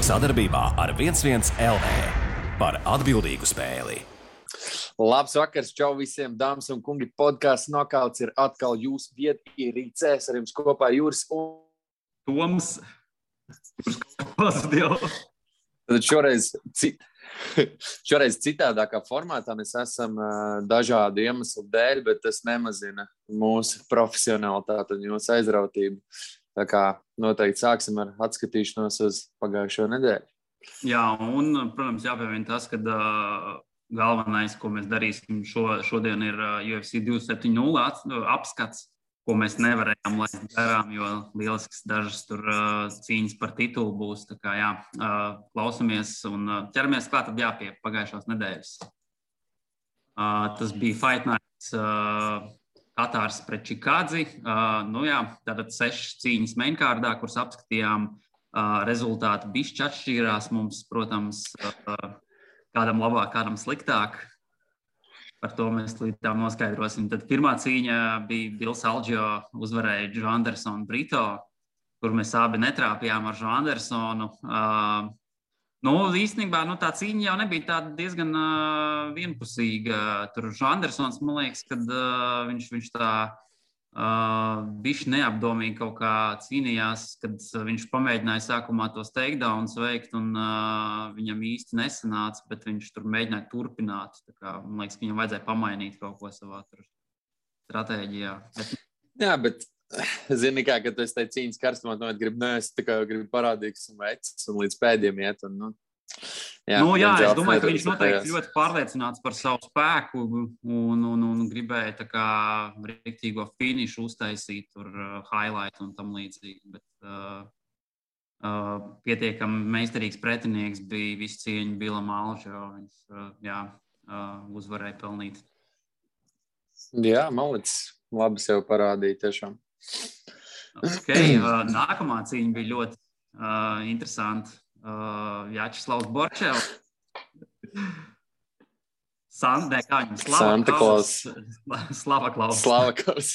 Sadarbībā ar 11 LV par atbildīgu spēli. Labs vakars, čau visiem, dāmas un kungi. Podcasts Nokauts ir atkal jūsu vietierīcēs. Ar jums kopā Juris un Toms. Tad šoreiz citādākā formātā mēs esam dažādu iemeslu dēļ, bet tas nemazina mūsu profesionalitāti un jūsu aizrautību. Tā kā noteikti sāksim ar atskatīšanos uz pagājušo nedēļu. Jā, un, protams, jāpieviena tas, ka galvenais, ko mēs darīsim šodien, ir UFC 270 apskats, ko mēs nevarējām laist garām, jo lielisks dažas tur cīņas par titulu būs. Tā kā jā, klausamies un ķeramies klāt tad pie pagājušās nedēļas. Tas bija Fight Nights Katārs pret Čikādzi. Tātad 6 cīņas mainkārdā, kuras apskatījām. Rezultāti bišķi atšķīrās mums, protams, kādam labāk, kādam sliktāk. Par to mēs līdz tam noskaidrosim. Tad pirmā cīņa bija Bills Algio uzvarēja Joe Andersonu Brito, kur mēs abi netrāpījām ar Joe Andersonu. Īstenībā tā cīņa jau nebija tāda diezgan vienpusīga. Tur Joe Andersons, man liekas, kad viņš tā bišķi neapdomīgi kaut kā cīnījās, kad viņš pamēģināja sākumā tos takedowns veikt un viņam īsti nesanāca, bet viņš tur mēģināja turpināt. Tā kā, man liekas, ka viņam vajadzēja pamainīt kaut ko savā stratēģijā. Jā, bet zini kā, kad tu esi tai cīņas karstumā, gribi parādīgs un vecs un līdz pēdējiem iet. Es domāju, ka viņš noteikti ļoti pārliecināts par savu spēku un gribēja tā kā riktīgo finišu uztaisīt, tur highlight un tam līdzīgi. Bet pietiekami meistarīgs pretinieks bija visu cieņu Billam Algio. Viņš uzvarēja pelnīt. Jā, malicis. Labi sev parādīja tiešām. Nākamā cīņa bija ļoti interesanta. Vjačeslavs Borčevs. Santa Klaus. Slava Klaus,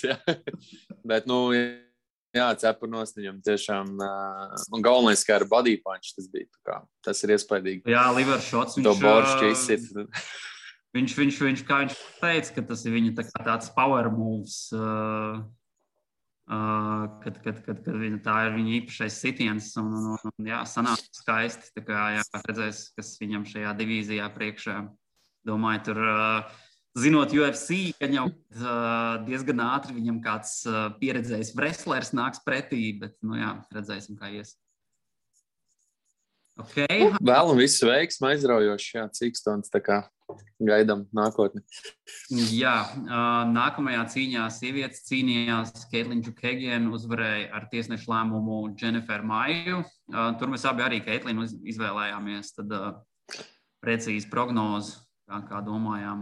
jā. Bet, cepurnos viņam tiešām, un galvenais, kā ar body punch tas bija, tas ir iespaidīgi. Jā, liver shots. To boršķi izsit. Viņš, kā viņš teica, ka tas ir viņa tāds power moves, kad tā ir viņa īpašais sitiens un sanāk skaisti. Tā kā redzēs, kas viņam šajā divīzijā priekšā. Domāju, tur zinot UFC, ka jau diezgan ātri viņam kāds pieredzējis wrestlers nāks pretī, bet redzēsim, kā ies. Vēlam visu veiksmu, aizraujoši, Cīkstons, tā kā gaidām nākotni. Jā, nākamajā cīņā sievietes cīnījās. Caitlin Chookagian uzvarēja ar tiesnešu lēmumu Jennifer Maiju. Tur mēs abi arī Caitlinu izvēlējāmies, tad precīzi prognozi, kā domājām.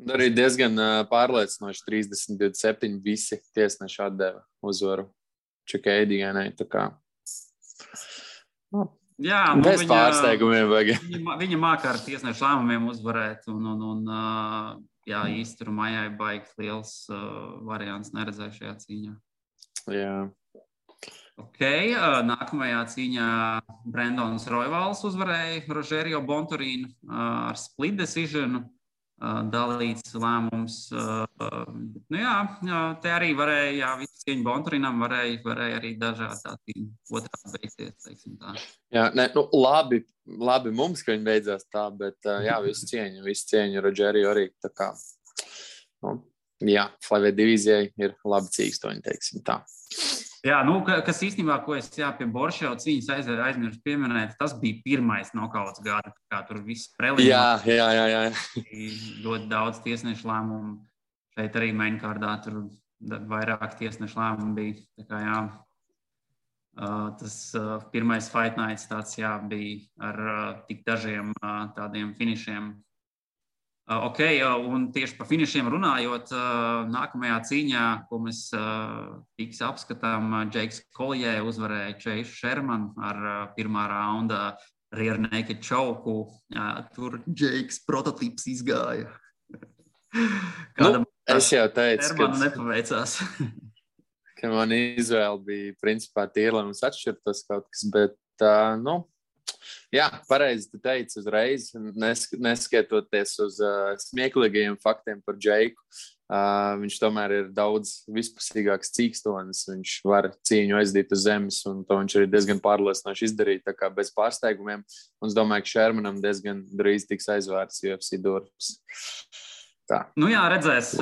Un arī diezgan pārliecinoši 30-27 visi tiesneši atdeva uzvaru Chookagianai, tā kā. Jā, bez pārsteigumiem vajag. Viņa mākā ar tiesnešu lēmumiem uzvarēt un īsti tur Maijai baigt liels variants neredzēju šajā cīņā. Jā. Nākamajā cīņā Brandons Royvals uzvarēja Rogerio Bontorīnu ar split decision. Dalīts lēmums. Te arī varēja, visu cieņu Bontorinam varēja arī dažādi otrā beigties, teiksim tā. Jā, labi mums, ka viņi beidzās tā, bet visu cieņu Rogerio arī tā kā. Flavē divīzijai ir labi cīkstoņi, teiksim tā. Jā, kas īstenībā, ko es pie Borševa cīņas aizmirsu pieminēt, tas bija pirmais nokauts gada, kā tur viss preliminās. Jā. Ļoti daudz tiesnešu lēmumu. Šeit arī mainkārdā tur vairāk tiesnešu lēmumu bija. Tā kā tas pirmais Fight Nights tāds bija ar tik dažiem tādiem finišiem. Un tieši par finišiem runājot, nākamajā cīņā, ko mēs tiks apskatām, Džeiks Collier uzvarēja Chase Sherman ar pirmā raunda rear naked choke. Tur Džeiks prototyps izgāja. Es jau teicu, ka nepaveicās. Ka man izvēle bija principā tīra, lai mums atšķirtos kaut kas, bet jā, pareizi tu teici uzreiz, neskatoties uz smieklīgajiem faktiem par Džeiku. Viņš tomēr ir daudz vispusīgāks cīkstonis, viņš var cīņu aizdīt uz zemes, un to viņš arī diezgan pārliecinoši izdarīja, tā kā bez pārsteigumiem. Un es domāju, ka Shermanam diezgan drīz tiks aizvērts UFC durvis. Tā. Jā, redzēs,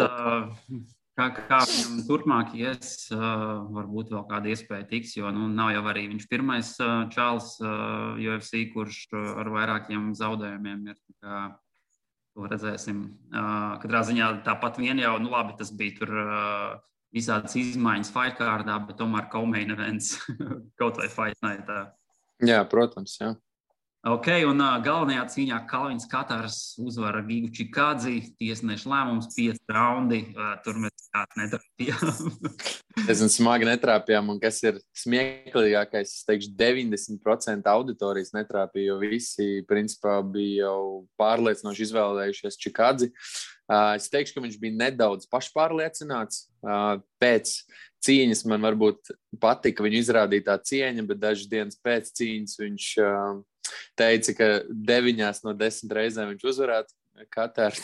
kā viņam turpmāk ies, varbūt vēl kāda iespēja tiks, jo nav jau arī viņš pirmais čāls UFC, kurš ar vairākiem zaudējumiem ir. To redzēsim. Katrā ziņā tāpat vien jau, labi, tas bija tur visādas izmaiņas fight kārdā, bet tomēr co-main events kaut vai fight nightā. Jā, protams, jā. Ok, un galvenajā cīņā Kalvins Katars uzvara Gigu Čikādzi, tiesneša lēmums 5 raundi, tur mēs netrāpījām. Diezgan smagi netrāpījām, un kas ir smieklīgākais, es teikšu, 90% auditorijas netrāpīja, jo visi, principā, bija jau pārliecinoši izvēlējušies Čikādzi. Es teikšu, ka viņš bija nedaudz pašpārliecināts. Pēc cīņas man varbūt patika viņu izrādītā cieņa, bet dažas dienas pēc cīņas viņš teica, ka 9 no 10 reizēm viņš uzvarētu Kataru.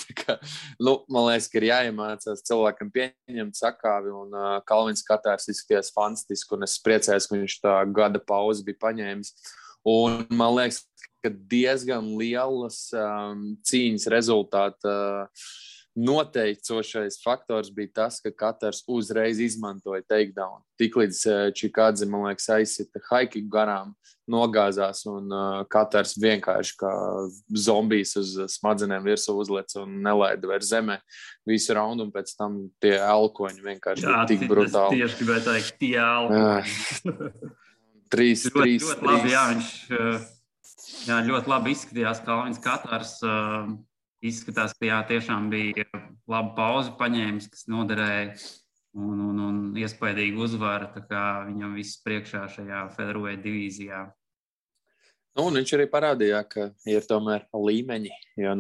Man liekas, ka ir jāiemācās cilvēkam pieņemt sakāvi, un Kalvins Katars izskatījās fantastiski, un es priecājos, ka viņš tā gada pauzi bija paņēmis. Un man liekas, ka diezgan lielas cīņas rezultāta noteicošais faktors bija tas, ka Katars uzreiz izmantoja takedown. Tiklīdz Čikādze, man liekas, aizsita haikiku garām, nogāzās, un Katars vienkārši kā zombijs uz smadzenēm virsū uzlec un nelaida vairs zemē visu raundu, un pēc tam tie elkoņi vienkārši bija tik brutāli. Tieši gribēju teikt, tie elkoņi. 3. Ļoti labi, jā, viņš ļoti labi izskatījās Kalvins Katars. Izskatās, ka tiešām bija laba pauze paņēmis, kas noderēja un iespaidīgi uzvara, tā kā viņam viss priekšā šajā featherweight divīzijā. Un viņš arī parādīja, ka ir tomēr līmeņi, jo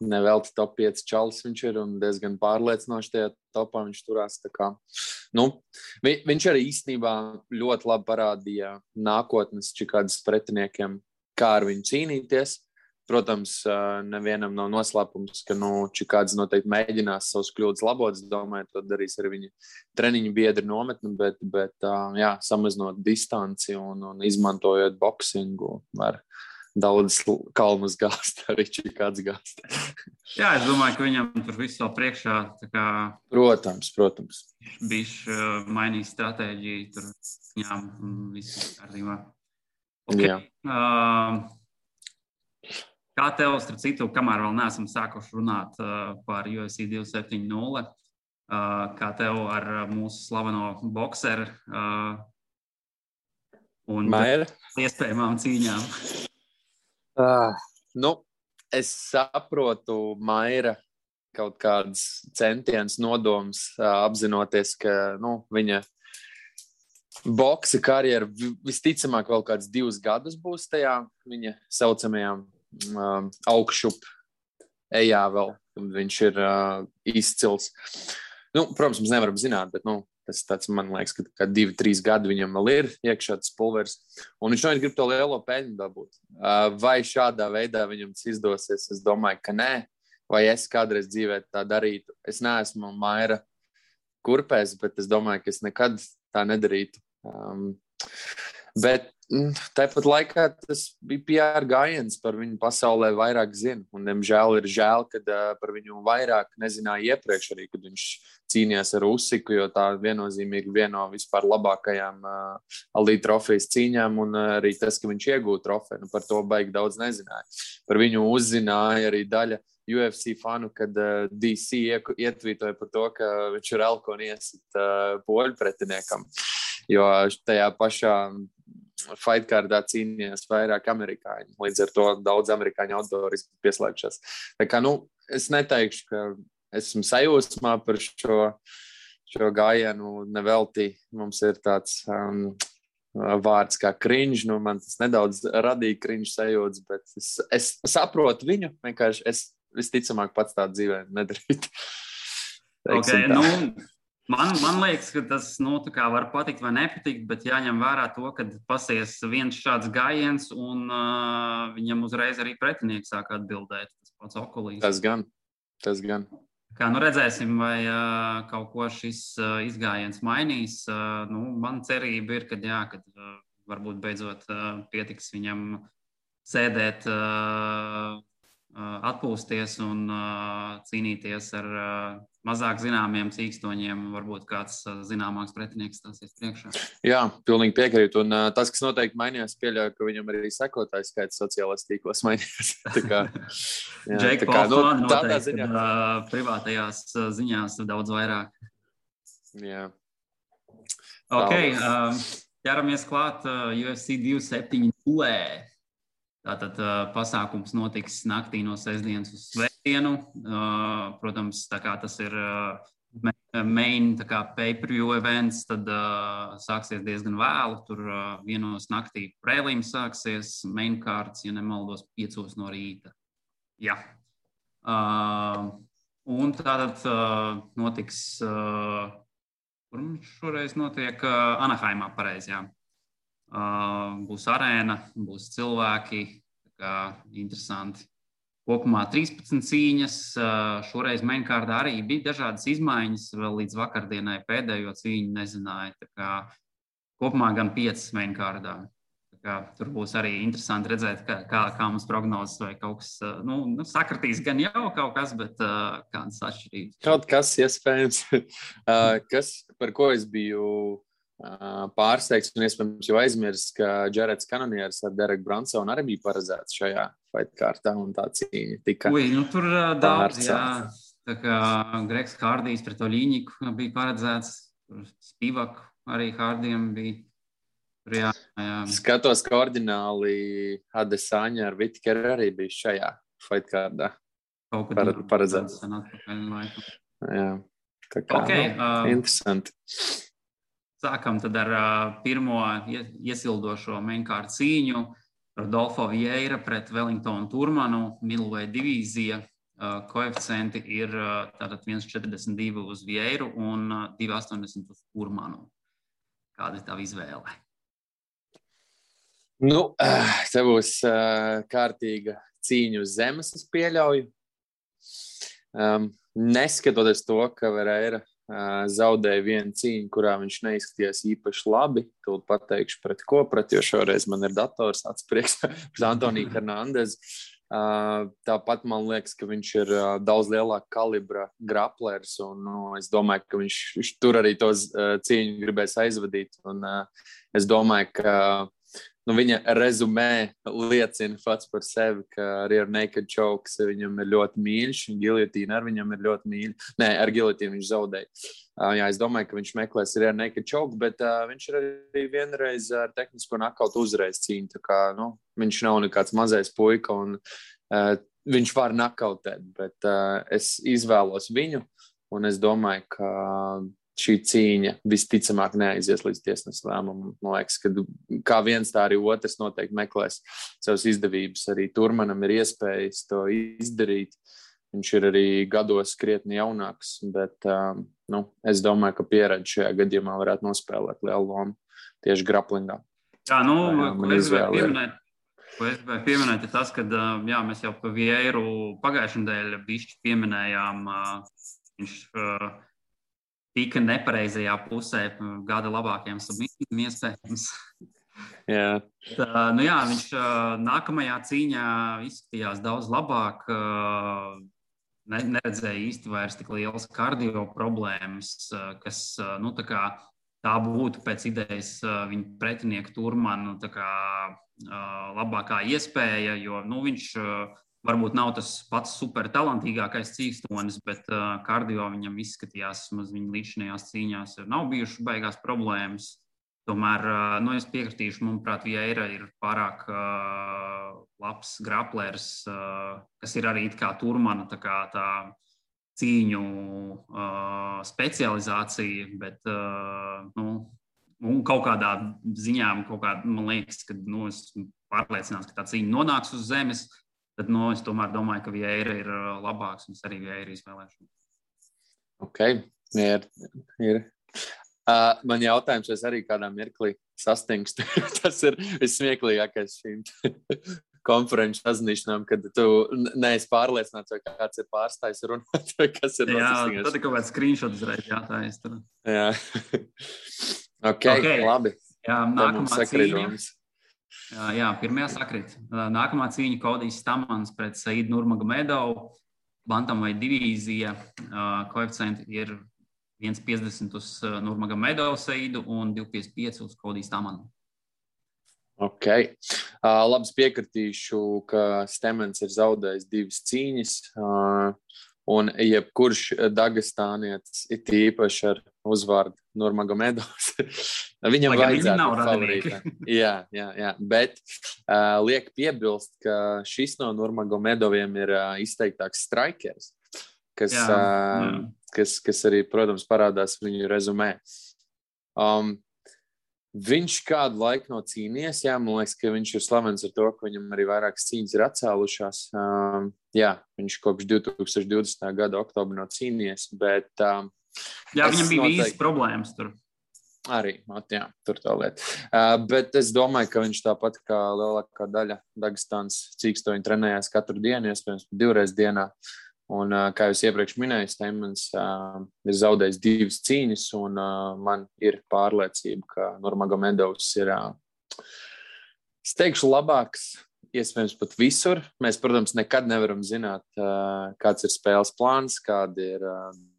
nevelti top 5 čalis viņš ir un diezgan pārliecinoši tajā topā viņš turās. Tā kā, viņš arī īstenībā ļoti labi parādīja nākotnes Čikādzes pretiniekiem, kā ar viņu cīnīties. Protams, nevienam nav noslēpums, ka Čikādze noteikti mēģinās savus kļūdas labot. Es domāju, to darīs arī viņa treniņu biedri nometni, bet samazinot distanci un izmantojot boksingu, var daudz kalnus gāzt, arī Čikādze gāzt. Jā, es domāju, ka viņam tur viss vēl priekšā. Tā kā Protams. Viņš mainīja stratēģiju, tur viņām viss kārtībā. Okay. Jā. Kā tev, starp citu, kamēr vēl neesam sākuši runāt par UFC 270, kā tev ar mūsu slaveno bokseru un Maira iespējamām cīņām? Es saprotu Maira kaut kādas centienas nodoms, apzinoties, ka viņa boksa karjera visticamāk vēl kāds 2 gadus būs tajā viņa saucamajām augšup ejā vēl, kad viņš ir izcils. Protams, mēs nevaram zināt, bet tas tāds, man liekas, ka 2-3 gadi viņam vēl ir iekšā tas pulveris, un viņš noteikti grib to lielo peļņu dabūt. Vai šādā veidā viņam tas izdosies? Es domāju, ka nē. Vai es kādreiz dzīvē tā darītu? Es neesmu Maira kurpēs, bet es domāju, ka es nekad tā nedarītu. Bet tāpat laikā tas bija PR gājiens, par viņu pasaulē vairāk zina. Un, diemžēl, ir žēl, kad par viņu vairāk nezināja iepriekš arī, kad viņš cīnījās ar Usiku, jo tā viennozīmīgi viena no vispār labākajām Ali trofejas cīņām, un arī tas, ka viņš iegūta trofeju, par to baigi daudz nezināja. Par viņu uzzināja arī daļa UFC fanu, kad DC ietvītoja par to, ka viņš ir elkoni iesit poļu pretiniekam, jo tajā pašā fightkārdā cīnījās vairāk amerikāņi. Līdz ar to daudz amerikāņu autori pieslēgšās. Tā kā, es neteikšu, ka esmu sajūsmā par šo gājienu nevelti. Mums ir tāds vārds kā cringe. Man tas nedaudz radīja cringe sajūtas, bet es saprotu viņu. Vienkārši es visticamāk pats tā dzīvē nedarītu. Okay, Man liekas, ka tas tā kā var patikt vai nepatikt, bet jāņem vērā to, ka pasies viens šāds gājiens, un viņam uzreiz arī pretinieks sāk atbildēt. Tas pats Okolīs. Tas gan. Kā redzēsim, vai kaut ko šis izgājiens mainīs. Man cerība ir, kad varbūt beidzot pietiks viņam sēdēt, atpūsties un cīnīties ar mazāk zināmiem cīkstoņiem. Varbūt kāds zināmāks pretinieks stāsies priekšā. Jā, pilnīgi piekrītu. Un tas, kas noteikti mainījās, pieļauju, ka viņam arī sekotājs skaits sociālajos tīklos mainījās. Džeika Paulsona noteikti, kad privātajās ziņās daudz vairāk. Jā. Ok, ķeramies klāt UFC 270. Tātad pasākums notiks naktī no sestdienas uz svētdienu. Protams, tā kā tas ir main pay-per-view events, tad sāksies diezgan vēlu. Tur vienos naktī prelims sāksies, main cards, ja nemaldos, 5 no rīta. Jā. Un tātad notiks, kur šoreiz notiek Anaheimā, pareizi, jā. Būs arēna, būs cilvēki, tā kā interesanti. Kopumā 13 cīņas, šoreiz mainkārdā arī bija dažādas izmaiņas, vēl līdz vakardienai pēdējo cīņu nezināja. Tā kā kopumā gan 5 mainkārdā. Tā kā tur būs arī interesanti redzēt, kā mums prognozes vai kaut kas, sakritīs gan jau kaut kas, bet kādas atšķirības. Kaut kas iespējams, par ko es biju pārsteigts un iespējams jau aizmirst, ka Jareds Cannoniers ar Dereku Bransonu arī bija paredzēts šajā fightkārtā un tā cīņa tika tur daudz, jā. Tā kā Gregs Hardijs pret Oļīņiku bija paredzēts, Spivak arī Hardijam bija. Jā. Skatos, ka ordināli Adesanya ar Whittakeru arī bija šajā fightkārdā paredzēts. Jā, tā kā interesanti. Sākam tad ar pirmo iesildošo mainkārdu cīņu. Rodolfo Vieira pret Wellingtonu Turmanu, middleweight divīzija. Koeficienti ir tātad 1,42 uz Vieiru un 2,80 uz Turmanu. Kāda ir tava izvēle? Te būs kārtīga cīņa uz zemes, es pieļauju. Neskatoties to, ka Vieira zaudēja vienu cīņu, kurā viņš neizskatījās īpaši labi. Tūlīt pateikšu pret ko, jo šoreiz man ir dators atsprieks pret Antoniju Hernandez. Tāpat man liekas, ka viņš ir daudz lielāka kalibra graplers, un es domāju, ka viņš tur arī to cīņu gribēs aizvadīt. Un es domāju, ka viņa rezumē liecina pats par sevi, ka rear naked chokes viņam ir ļoti mīļš, un giljotīna ar viņam ir ļoti mīļa. Nē, ar giljotīnu viņš zaudēja. Jā, es domāju, ka viņš meklēs rear naked choke, bet viņš ir arī vienreiz ar tehnisko nakautu uzreiz cīņu. Tā kā, viņš nav nekāds mazais puika, un viņš var nakautēt, bet es izvēlos viņu, un es domāju, ka šī cīņa visticamāk neaizies līdz tiesneša lēmumam. Man liekas, ka kā viens, tā arī otrs noteikti meklēs savas izdevības. Arī Turmanam ir iespējas to izdarīt. Viņš ir arī gados krietni jaunāks, bet es domāju, ka pieredze šajā gadījumā varētu nospēlēt lielu lomu tieši graplingā. Jā, ko es gribēju pieminēt, ir tas, ka mēs jau pa Vieiru pagājušajā nedēļā bišķi pieminējām, viņš tika nepareizajā pusē gada labākajām submisijām iespējams. Jā. Viņš nākamajā cīņā izskatījās daudz labāk, neredzēja īsti vairs tik lielas kardio problēmas, kas, tā būtu pēc idejas viņa pretinieku Turmanu labākā iespēja, jo, viņš varbūt nav tas pats super talantīgākais cīkstonis, bet kardio viņam izskatījās, viņa līdzinājās cīņās nav bijušas baigās problēmas. Tomēr, es piekritīšu, manuprāt, Vieira ir pārāk labs graplers, kas ir arī kā Turmana, tā cīņu specializācija, bet, un kaut kādā ziņā, man liekas, ka, esmu pārliecināts, ka tā cīņa nonāks uz zemes. Tad es tomēr domāju, ka Vieira ir labāks, un es arī Vieira izvēlēšu. Ok, Ir. Man jautājums, vai es arī kādā mirklī sastingstu. Tas ir vissmieklīgākais šīm konferenču sazināšanām, kad tu neesi pārliecināts, vai kāds ir pārstājis runāt, vai kas ir noticis. Jā, tad ir kaut kāds screenshot uzreiz jātājas tur. Jā. Okay, labi. Jā, nākamā cīņa. Jā, pirmajā sakrit. Nākamā cīņa Kodijs Stamans pret Saidu Nurmagomedov. Bantamveight divīzija. Koeficienti ir 1,50 uz Nurmagomedov Saidu un 2,55 uz Kodiju Stamanu. Ok. Labs piekritīšu, ka Stamans ir zaudējis 2 cīņas, un jebkurš dagestānietis ir īpaši ar uzvārdu Nurmagomedovs. Viņam vajadzētu būt favorītam. Jā. Bet liek piebilst, ka šis no Nurmagomedoviem ir izteiktāks strikers, kas arī, protams, parādās viņu rezumē. Viņš kādu laiku nav cīnījies, man liekas, ka viņš ir slavens ar to, ka viņam arī vairākas cīņas ir atcēlušās. Viņš kopš 2020. gada oktobra nav cīnījies, bet... viņam bija vīzes problēmas tur. Arī, tur tā lieta. Bet es domāju, ka viņš tāpat kā lielākā daļa Dagestānas cīkstoņi trenējās katru dienu, iespējams 2 reizes dienā. Un, kā jūs iepriekš minēju, Stamans ir zaudējis 2 cīņas, un man ir pārliecība, ka Nurmagomedovs ir, es teikšu, labāks, iespējams pat visur. Mēs, protams, nekad nevaram zināt, kāds ir spēles plāns, kādi ir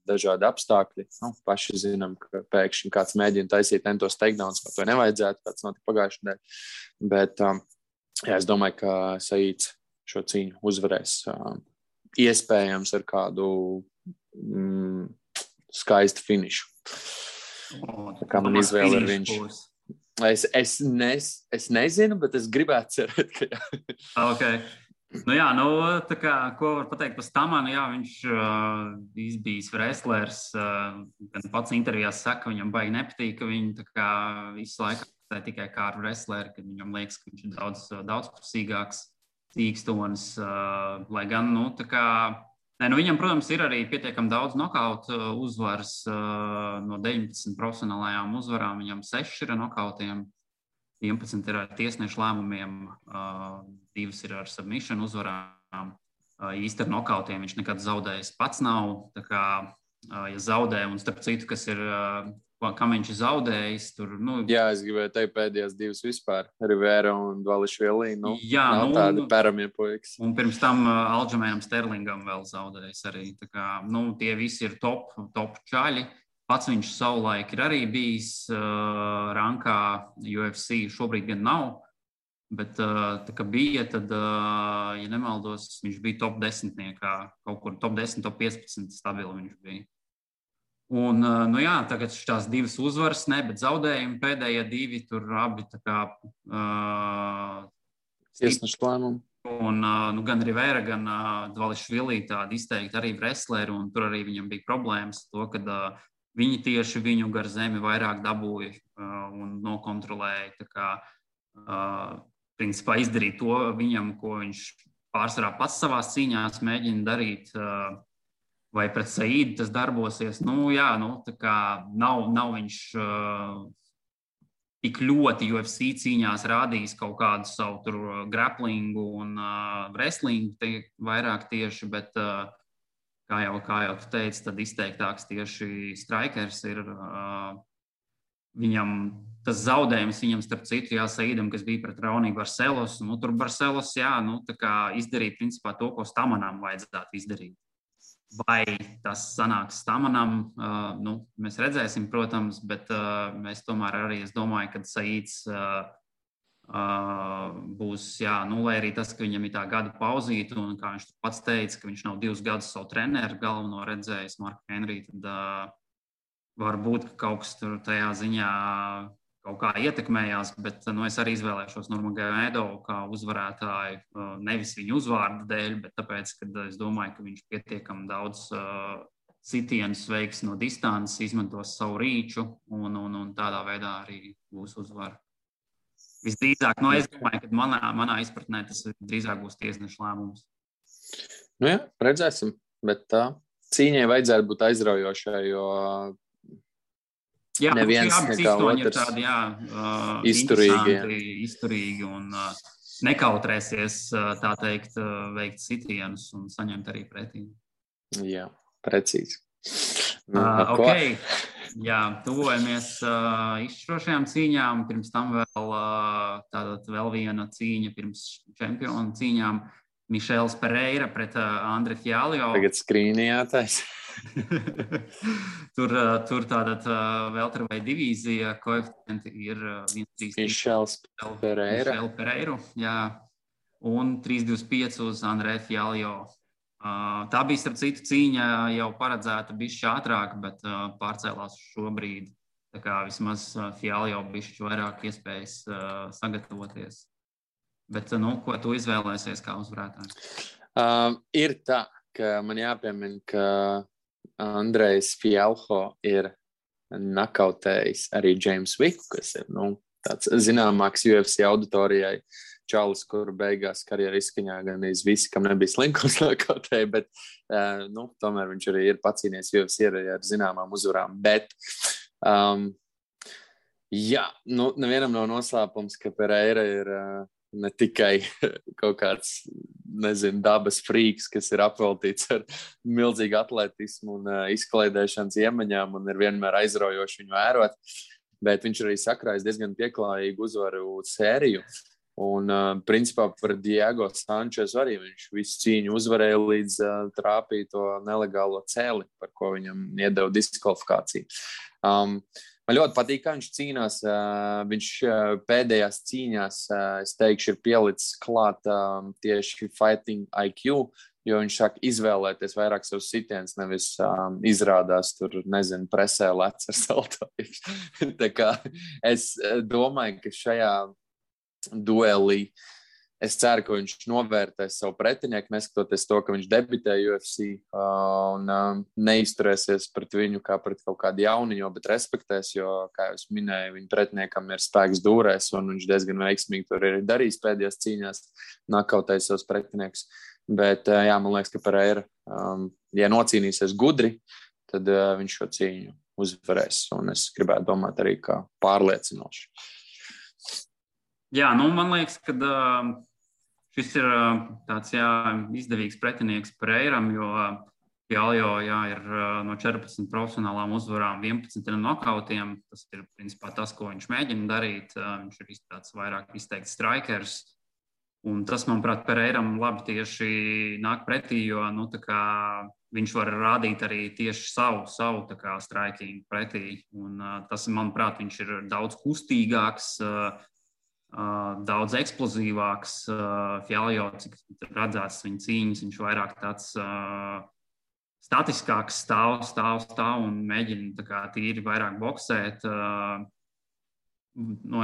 dažādi apstākļi. Paši zinām, ka pēkšņi kāds mēģina taisīt entos takedowns, vai to nevajadzētu, kāds notika pagājušajā nedēļā. Bet es domāju, ka Saids šo cīņu uzvarēs. Iespējams ar kādu skaistu finišu. Tā kā man izvēle ir viņš. Es nezinu, bet es gribētu cerēt, ka jā. Okay. Tā kā, ko var pateikt par Stamanu, viņš izbijis wrestlers, gan pats intervijās saka, viņam baigi nepatīk, ka viņi tā kā visu laiku tikai kā ar wrestleri, kad viņam liekas, ka viņš ir daudzpusīgāks. Cīkstonis, lai gan, viņam, protams, ir arī pietiekami daudz nokautu uzvaras no 19 profesionālajām uzvarām. Viņam 6 ir ar nokautiem, 11 ir ar tiesnešu lēmumiem, 2 ir ar submission uzvarām. Īsti ar nokautiem viņš nekad zaudējis pats nav. Tā kā, ja zaudē, un starp citu, kas ir... kam viņš ir zaudējis. Jā, es gribēju teikt pēdējās 2 vispār. Rivera un Dvališvili. Nav tādi peramie puikas. Un pirms tam Aljamainam Sterlingam vēl zaudējis arī. Tā kā, tie visi ir top čaļi. Pats viņš savulaik ir arī bijis rankā UFC. Šobrīd gan nav. Bet tā kā bija, tad, ja nemaldos, viņš bija top 10. Kaut kur top 10, top 15 stabili viņš bija. Un, tagad šīs 2 uzvaras, bet zaudējumi pēdējie 2, tur abi tā kā tiesnešu lēmumi. Un gan Rivera, gan Dvališvili tādi izteikti arī wrestleri, un tur arī viņam bija problēmas to, kad viņi tieši viņu gar zemi vairāk dabūja un nokontrolēja. Tā kā, principā izdarīt to viņam, ko viņš pārsvarā pats savās cīņās mēģina darīt, vai pret Saidu tas darbosies. Tā kā nav viņš tik ļoti UFC cīņās rādījis kaut kādu savu tur grapplingu un wrestlingu vairāk tieši, bet kā jau tu teici, tad izteiktāks tieši strikers ir. Viņam tas zaudējums, starp citu, Saidam, kas bija pret Raoni Barcelos, tur Barcelos, tā kā izdarīt principā to, ko Stamanam vajadzētu izdarīt. Vai tas sanāks Stamanam, mēs redzēsim, protams, bet mēs tomēr arī, es domāju, ka Saids būs, lai arī tas, ka viņam ir tā gada pauzīta, un kā viņš pats teica, ka viņš nav 2 gadus savu treneru galveno redzējis, Marku Henriju, tad varbūt kaut kas tur tajā ziņā kaut kā ietekmējās, bet es arī izvēlēšos Nurmagomedovu kā uzvarētāju, nevis viņu uzvārdu dēļ, bet tāpēc, ka es domāju, ka viņš pietiekami daudz sitienus veiks no distances, izmantos savu rīču un tādā veidā arī būs uzvara. Visdrīzāk, es domāju, ka manā izpratnē tas drīzāk būs tiesnešu lēmums. Redzēsim, bet cīņai vajadzētu būt aizraujošai, jo Jā, neviens abi nekā cīstoņi ir otrs tādi, izturīgi un nekautrēsies, tā teikt, veikt sitienus un saņemt arī pretī. Jā, precīzi. Ok, jā, tuvojamies izšķirošajām cīņām. Pirms tam vēl viena cīņa pirms čempionu cīņām. Mišels Pereira pret Andre Fialio. Tagad skrīnījātais. Tur tātad welterweight divīzija, koeficienti ir 1,33. Mišels Pereira. Mišel Pereiru, jā. Un 3,25 uz Andre Fialio. Tā bija, starp citu, cīņa jau paredzēta bišķi ātrāk, bet pārcēlās šobrīd. Tā kā vismaz Fialio bišķi vairāk iespējas sagatavoties. Bet, ko tu izvēlēsies kā uzvarētājs? Ir tā, ka man jāpiemina, ka Andrejs Fialho ir nakautējis arī James Vicku, kas ir tāds zināmāks UFC auditorijai čalis, kur beigās karjeru izskaņā gan visi, kam nebija slinkums nakautēja, bet tomēr viņš arī ir pacīnies UFC ar zināmām uzvarām. Bet nevienam nav noslēpums, ka Pereira ir ne tikai kaut kāds, dabas frīks, kas ir apveltīts ar milzīgu atletismu un izklaidēšanas iemaņām un ir vienmēr aizraujoši viņu vērot, bet viņš arī sakrājis diezgan pieklājīgu uzvaru sēriju. Un, principā, par Diego Sančesu arī viņš visu cīņu uzvarēja līdz trāpīja to nelegālo cēli, par ko viņam iedeva diskvalifikāciju. Man ļoti patīk, kā viņš cīnās. Viņš pēdējās cīņās, es teikšu, ir pielicis klāt tieši fighting IQ, jo viņš sāk izvēlēties vairāk savus sitienus, nevis izrādās tur, presē lec ar saltojuši. Tā kā es domāju, ka šajā duelī es ceru, ka viņš novērtēs savu pretinieku, neskatoties to, ka viņš debitē UFC un neizturēsies pret viņu kā pret kaut kādu jauniņo, bet respektēs, jo, kā jau es minēju, viņa pretiniekam ir spēks dūrēs un viņš diezgan veiksmīgi tur ir darījis pēdējās cīņās, nakautējis savus pretiniekus. Bet, man liekas, ka Pereira, ja nocīnīsies gudri, tad viņš šo cīņu uzvarēs un es gribētu domāt arī kā pārliecinoši. Jā, man liekas, ka šis ir tāds izdevīgs pretinieks Pereiram, jo Fialio ir no 14 profesionālām uzvarām 11 nokautiem. Tas ir principā tas, ko viņš mēģina darīt. Viņš ir tāds vairāk izteikts strikers. Un tas, manuprāt, Pereiram labi tieši nāk pretī, jo viņš var rādīt arī tieši savu striking pretī. Un tas, manuprāt, viņš ir daudz kustīgāks, daudz eksplozīvāks. Fialio, cik redzēts viņa cīņas, viņš vairāk tāds statiskāks stāv un mēģina tīri vairāk boksēt.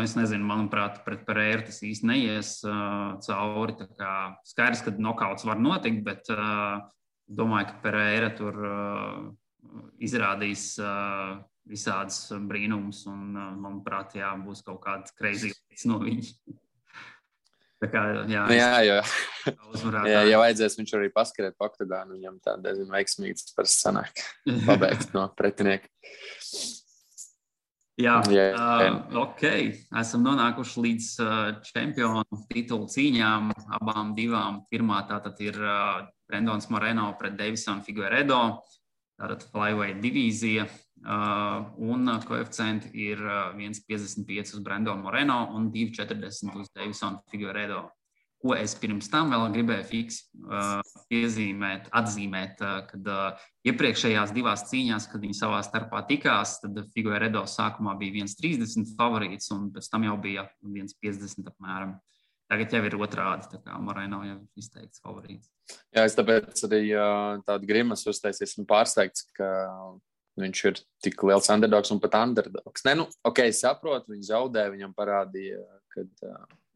Es nezinu, manuprāt, pret Pereiru tas īsti neies cauri. Skaidrs, ka nokauts var notikt, bet domāju, ka Pereira tur izrādīs visādas brīnumus un, manuprāt, būs kaut kāds crazy lietas no viņa. Tā kā, ja vajadzēs, viņš arī paskarēt pa oktagānu, viņam tā diezgan veiksmīgs par sanāk pabeigt no pretinieka. Ok. Esam nonākuši līdz čempionu titulu cīņām, abām divām. Pirmā tātad ir Brendons Moreno pret Deivison Figueiredo, tātad flyweight divīzija. Un koeficienti ir 1,55 uz Brendonu Moreno un 2,40 uz Deivison Figueiredo. Ko es pirms tam vēl gribēju atzīmēt, kad iepriekšējās divās cīņās, kad viņi savā starpā tikās, tad Figueiredo sākumā bija 1,30 favorīts un pēc tam jau bija 1,50 apmēram. Tagad jau ir otrādi, tā kā Moreno jau izteikts favorīts. Jā, es tāpēc arī tādu grimas uztaisies un pārsteigts, ka viņš ir tik liels underdogs un pat underdogs. Es saprotu, viņš zaudē, viņam parādīja, ka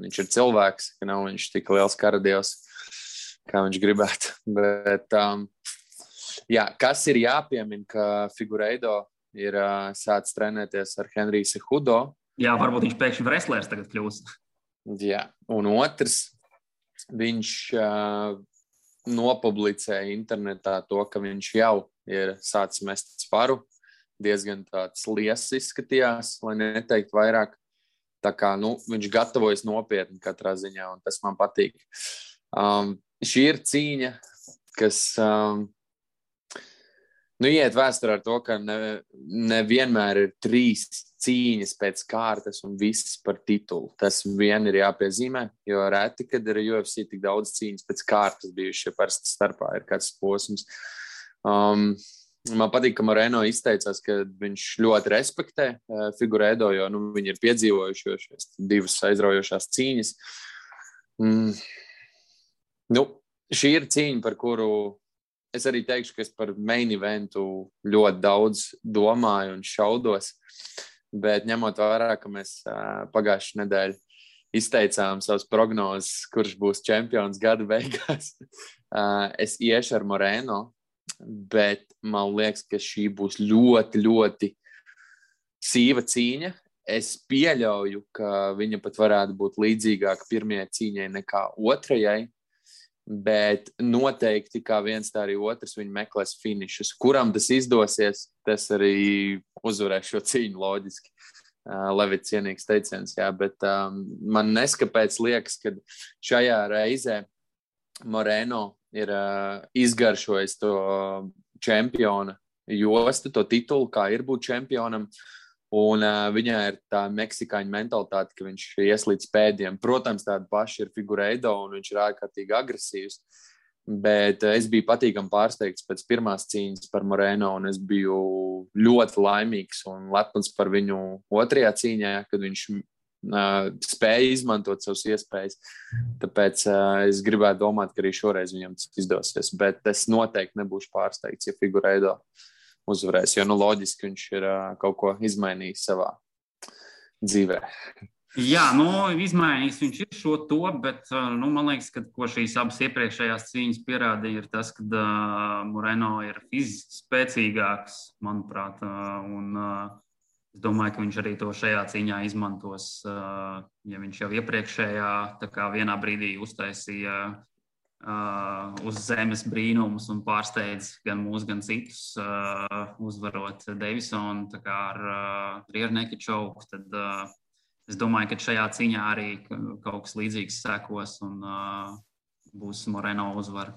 viņš ir cilvēks, ka nav viņš tik liels karadievs, kā viņš gribētu. Bet, kas ir jāpiemina, ka Figueiredo ir sācis trenēties ar Henriju Cejudo. Jā, varbūt viņš pēkšņi wrestlers tagad kļūs. Jā, un otrs, viņš nopublicēja internetā to, ka viņš jau ir sācis mest sparu. Diezgan tāds liesas izskatījās, lai neteikt vairāk. Tā kā, viņš gatavojas nopietni katrā ziņā, un tas man patīk. Šī ir cīņa, kas iet vēsturē ar to, ka nevienmēr ir 3 cīņas pēc kārtas un viss par titulu. Tas vien ir jāpiezīmē, jo reti, kad ir UFC tik daudz cīņas pēc kārtas bijuši, ja parasti starpā ir kāds posms. Man patīk, ka Moreno izteicās, ka viņš ļoti respektē Figueiredo, jo viņi ir piedzīvojuši šīs 2 aizraujošās cīņas. Šī ir cīņa, par kuru es arī teikšu, ka es par main eventu ļoti daudz domāju un šaudos, bet ņemot vērā, ka mēs pagājušajā nedēļā izteicām savas prognozes, kurš būs čempions gada beigās, es iešu ar Moreno. Bet man liekas, ka šī būs ļoti, ļoti sīva cīņa. Es pieļauju, ka viņa pat varētu būt līdzīgāka pirmajai cīņai nekā otrajai, bet noteikti kā viens, tā arī otrs viņi meklēs finišus. Kuram tas izdosies, tas arī uzvarēs šo cīņu loģiski. Levits cienīgs teiciens, jā, bet man neskapēc liekas, ka šajā reizē Moreno ir izgaršojis to čempiona jostu, to titulu, kā ir būt čempionam, un viņai ir tā meksikāņu mentalitāte, ka viņš ies līdz pēdiem. Protams, tāda paša ir Figueiredo, un viņš ir ārkārtīgi agresīvs, bet es biju patīkami pārsteigts pēc pirmās cīņas par Moreno, un es biju ļoti laimīgs un lepns par viņu otrajā cīņā, kad viņš spēja izmantot savas iespējas. Tāpēc es gribētu domāt, ka arī šoreiz viņam tas izdosies. Bet es noteikti nebūšu pārsteigts, ja Figueiredo uzvarēs, jo loģiski viņš ir kaut ko izmainījis savā dzīvē. Jā, izmainījis viņš ir šo to, bet man liekas, ka ko šīs abas iepriekšējās cīņas pierādīja, ir tas, ka Moreno ir fiziski spēcīgāks, manuprāt, un es domāju, ka viņš arī to šajā cīņā izmantos, ja viņš jau iepriekšējā tā kā vienā brīdī uztaisīja uz zemes brīnumus un pārsteidz gan mūs, gan citus, uzvarot Davisonu tā kā ar rear naked choke, tad es domāju, ka šajā cīņā arī kaut kas līdzīgs sekos un būs Moreno uzvara.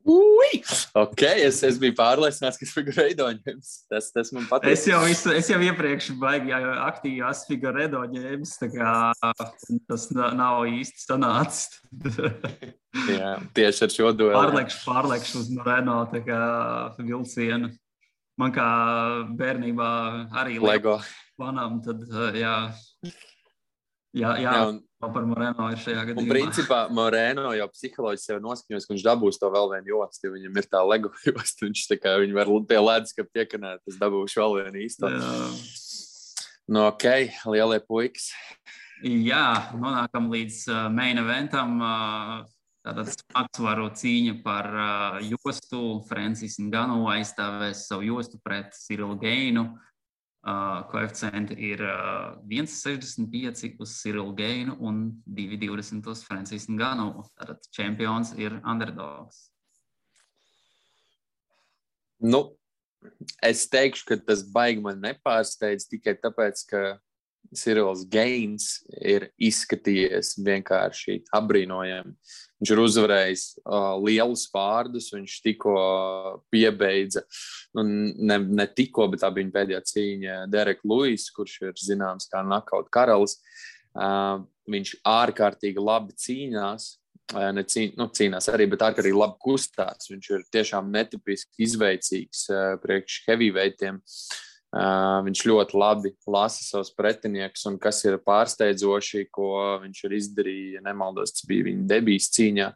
Ok, es biju pārliecināts, ka Figueiredo ņems. Tas man patīk. Es jau iepriekš baigi aktīvi esmu Figueiredo ņēmis, tā kā tas nav īsti sanācis. Jā, tieši ar šo dueli. Pārlekšu uz Moreno tā kā vilcienu. Man kā bērnībā arī Lego planām, tad jā, par Moreno ir šajā gadījumā. Un principā Moreno jau psiholoģiski sev noskaņojas, ka viņš dabūs to vēl vienu jostu, jo viņam ir tā Lego josta, viņš tā kā viņi var pie leduskapa piekanēt, es dabūšu vēl vienu īsto. Ok, lielie puikas. Jā, nonākam līdz main eventam, tātad smagsvaru cīņa par jostu. Francis Ngannou aizstāvēs savu jostu pret Cyril Gainu. Koeficienti ir 1,65 uz Cyril Gainu un 2,20 uz Francis Ngannou. Tātad čempions ir underdogs. Es teikšu, ka tas baigi man nepārsteidz tikai tāpēc, ka Cyrils Gains ir izskatījies vienkārši apbrīnojami. Viņš ir uzvarējis lielus vārdus, viņš tikko piebeidza, ne tikko, bet tā bija viņa pēdējā cīņa Derek Lewis, kurš ir zināms kā knockout karalis. Viņš ārkārtīgi labi cīnās, cīnās arī, bet ārkārtīgi labi kustās. Viņš ir tiešām netipiski izveicīgs priekš heavyweightiem. Viņš ļoti labi lasa savus pretiniekus, un kas ir pārsteidzoši, ko viņš ir izdarījis, ja nemaldos, tas bija viņa debijas cīņā.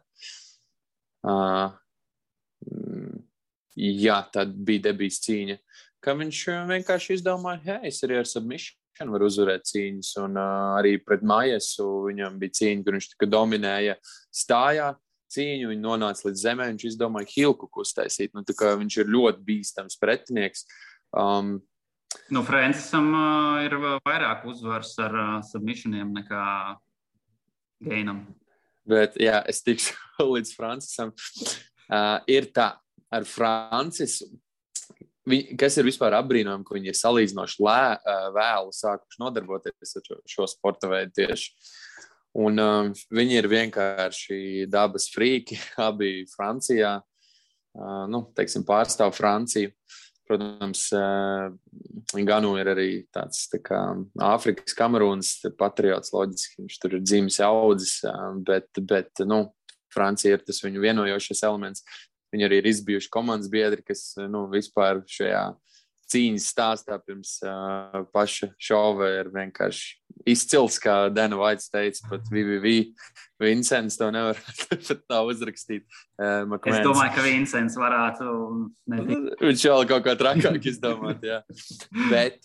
Jā, tad bija debijas cīņa, ka viņš vienkārši izdomāja, es arī ar submission varu uzvarēt cīņas, un arī pret Maiesu viņam bija cīņa, kur viņš tikai dominēja stājā cīņu, viņi nonāca līdz zemē, viņš izdomāja hilkuku uztaisīt, tā kā viņš ir ļoti bīstams pretinieks. Francisam ir vairāk uzvaras ar submissioniem nekā Gainam. Bet, jā, es tikšu līdz Francisam. Ir tā, ar Francisu, kas ir vispār apbrīnojami, ka viņi ir salīdzinoši vēlu sākuši nodarboties ar šo sporta veidu tieši. Un viņi ir vienkārši dabas frīki, abi Francijā, teiksim, pārstāv Franciju. Protams, Ganu ir arī tāds tā kā Āfrikas Kamerūnas patriots, loģiski, viņš tur ir dzimis audzis, bet Francija ir tas viņu vienojošais elements. Viņi arī ir izbijuši komandas biedri, kas vispār šajā cīņas stāstā pirms paša šova ir vienkārši izcils, kā Dana Vaits teica, pat Vincents to nevar pat tā uzrakstīt. Es domāju, ka Vincents varētu. Viņš vēl kaut kā trakāk izdomāt, jā. Bet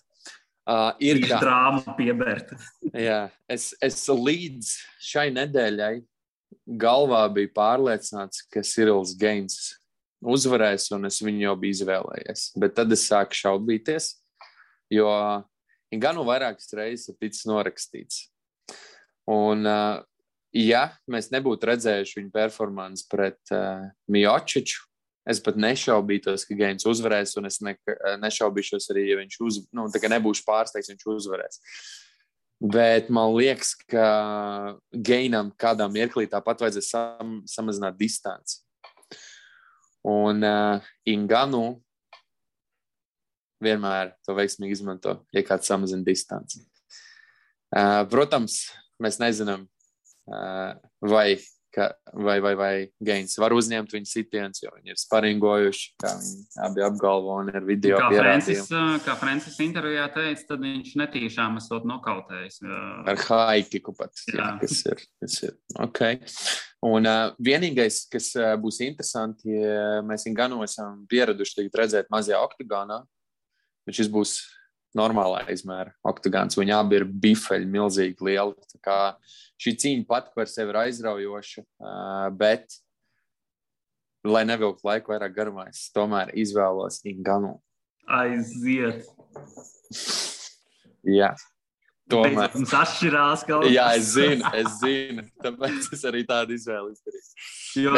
ir tā. Drāma piebērt. Jā, es līdz šai nedēļai galvā biju pārliecināts, ka Cyrils Gaines uzvarēs, un es viņu jau biju izvēlējies. Bet tad es sāku šaubīties, jo Ganu vairākas reizes ir ticis norakstīts. Un, ja mēs nebūtu redzējuši viņu performanci pret Miociču, es pat nešaubītos, ka Gaines uzvarēs, un es nešaubīšos arī, ja viņš nebūšu pārsteigts, viņš uzvarēs. Bet man liekas, ka Gainam kādā mirklī tāpat vajadzēs samazināt distanci. Un Ngannou vienmēr to veiksmīgi izmanto, ja kāds samazina distanci. Protams, mēs nezinām, vai Gaines var uzņemt viņu sitiens, jo viņi ir sparingojuši, kā viņi abi apgalvo un ir video pierādījumi. Kā Francis intervijā teica, tad viņš netīšām esot nokautējis. Ar haikiku pat, jā, kas ir. Okay. Un vienīgais, kas būs interesanti, ja mēs Ngannou esam pieraduši tagad redzēt mazajā oktagonā, bet šis būs normālā izmēra oktagons. Viņi abi ir bifeļi, milzīgi lieli. Tā kā šī cīņa pat par sevi ir aizraujoša, bet, lai nevilktu laiku vairāk garumā, es tomēr izvēlos Ngannou. Aiziet! Jā. Tomēr. Mums atšķirās kaut kas. Jā, es zinu. Tāpēc es arī tādu izvēli izdarīju. Jo,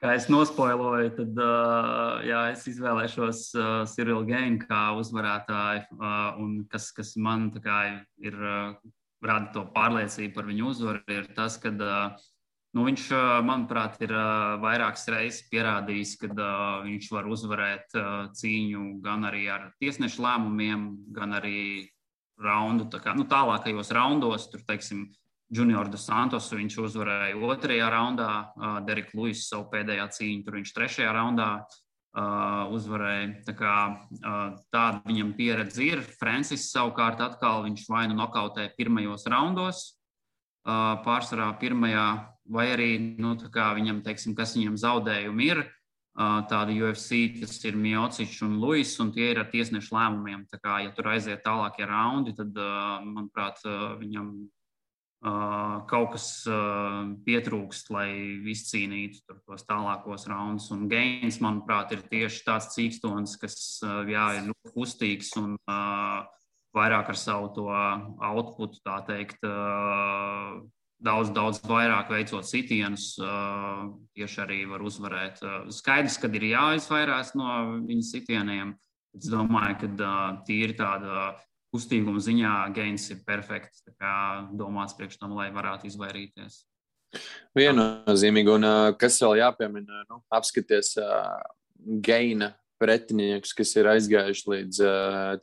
kā es nospoiloju, tad es izvēlēšos Cyril Gaine kā uzvarētāju, un kas man tā kā ir rada to pārliecību par viņu uzvaru, ir tas, ka viņš, manuprāt, ir vairākas reizes pierādījis, ka viņš var uzvarēt cīņu gan arī ar tiesnešu lēmumiem, gan arī raundu, tālākajos raundos, tur, teiksim, Junior dos Santos viņš uzvarēja 2. raundā, Derek Lewis savu pēdējā cīņu, tur viņš 3. raundā uzvarēja. Tā kā tāda viņam pieredze ir. Francis savukārt atkal viņš vai nu nokautē pirmajos raundos, pārsvarā pirmajā, vai arī, viņam, teiksim, kas viņam zaudējumi ir, tādi UFC, tas ir Miocičs un Lewis, un tie ir ar tiesnešu lēmumiem. Tā kā, ja tur aiziet tālākie raundi, tad, manuprāt, viņam kaut kas pietrūkst, lai izcīnītu tos tālākos raundus. Un Gaines, manuprāt, ir tieši tāds cīkstons, kas ir ļoti kustīgs un vairāk ar savu to outputu, tā teikt, daudz vairāk veicot sitienus, tieši arī var uzvarēt. Skaidrs, kad ir jāizvairās no viņa sitieniem. Es domāju, ka tīri tāda kustīguma ziņā Gaines ir perfekts, tā kā domāts priekš tam, lai varētu izvairīties. Viennozīmīgi, un kas vēl jāpiemina, apskaties Gaina pretiniekus, kas ir aizgājuši līdz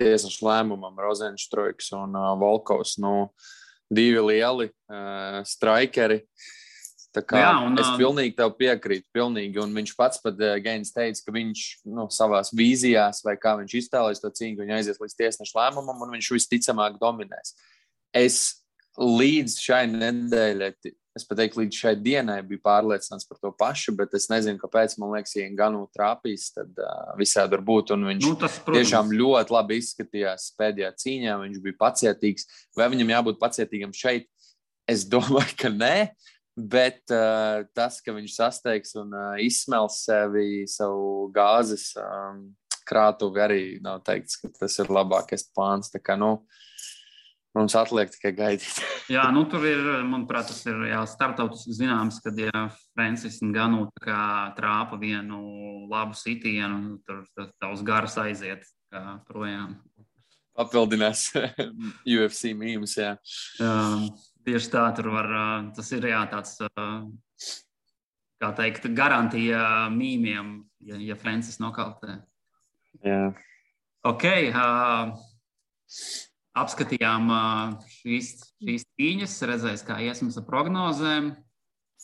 tiesnešu lēmumam, Rozenštroiks un Volkovs, divi lieli straikeri. Tā kā es pilnīgi tev piekrītu, pilnīgi, un viņš pats pat Gaines teica, ka viņš savās vīzijās, vai kā viņš iztēlēs to cīņu, viņš aizies līdz tiesnešu lēmumam, un viņš visticamāk dominēs. Es līdz šai nedēļai, es pat teiktu, līdz šai dienai biju pārliecināts par to pašu, bet es nezinu, kāpēc, man liekas, ja Ngannou trāpīs, tad visādi var būt, un viņš tiešām ļoti labi izskatījās pēdējā cīņā, viņš bija pacietīgs. Vai viņam jābūt pacietīgam šeit? Es domāju, ka nē, bet tas, ka viņš sasteigs un izsmels savu gāzes krātuvi, arī nav teikts, ka tas ir labākais plāns. Tā kā, Mums atliek tikai gaidīt. Jā, tur ir, manuprāt, tas ir starptautiski zināms, kad Francis Ngannou trāpa vienu labu sitienu, tur tavs garas aiziet projām. Papildinās UFC mīmus, jā. Tieši tā, tur var, tas ir tāds, kā teikt, garantija mīmiem, ja Francis nokautē. Jā. Ok, apskatījām šīs cīņas, redzēs, kā iesmas ar prognozēm.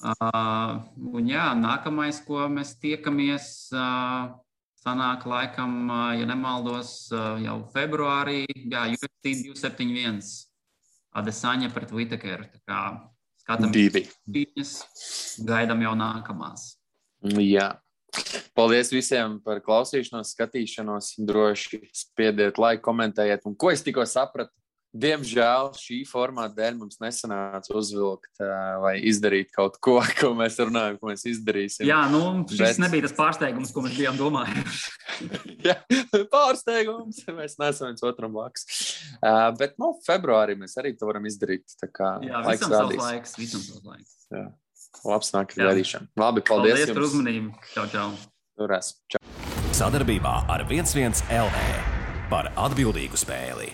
Un jā, nākamais, ko mēs tiekamies, sanāk laikam, ja nemaldos, jau februārī, jā, UFC 271, Adesanya pret Whittakeru. Tā kā skatāmies cīņas, gaidām jau nākamās. Jā. Paldies visiem par klausīšanos, skatīšanos. Droši spiediet laiku, komentējiet. Un ko es tikko sapratu? Diemžēl šī formāta dēļ mums nesanāca uzvilkt vai izdarīt kaut ko, ko mēs runājam, ko mēs izdarīsim. Jā, šis nebija tas pārsteigums, ko mēs bijām domājuši. Jā, pārsteigums. Mēs neesam viens otram blakus. Bet februārī mēs arī to varam izdarīt. Tā kā jā, visam savs laiks. Jā. Labs nāk gaidīšana. Labi, paldies jums. Par uzmanību. Čau. Turēs. Čau. Sadarbībā ar 11 LV par atbildīgu spēli.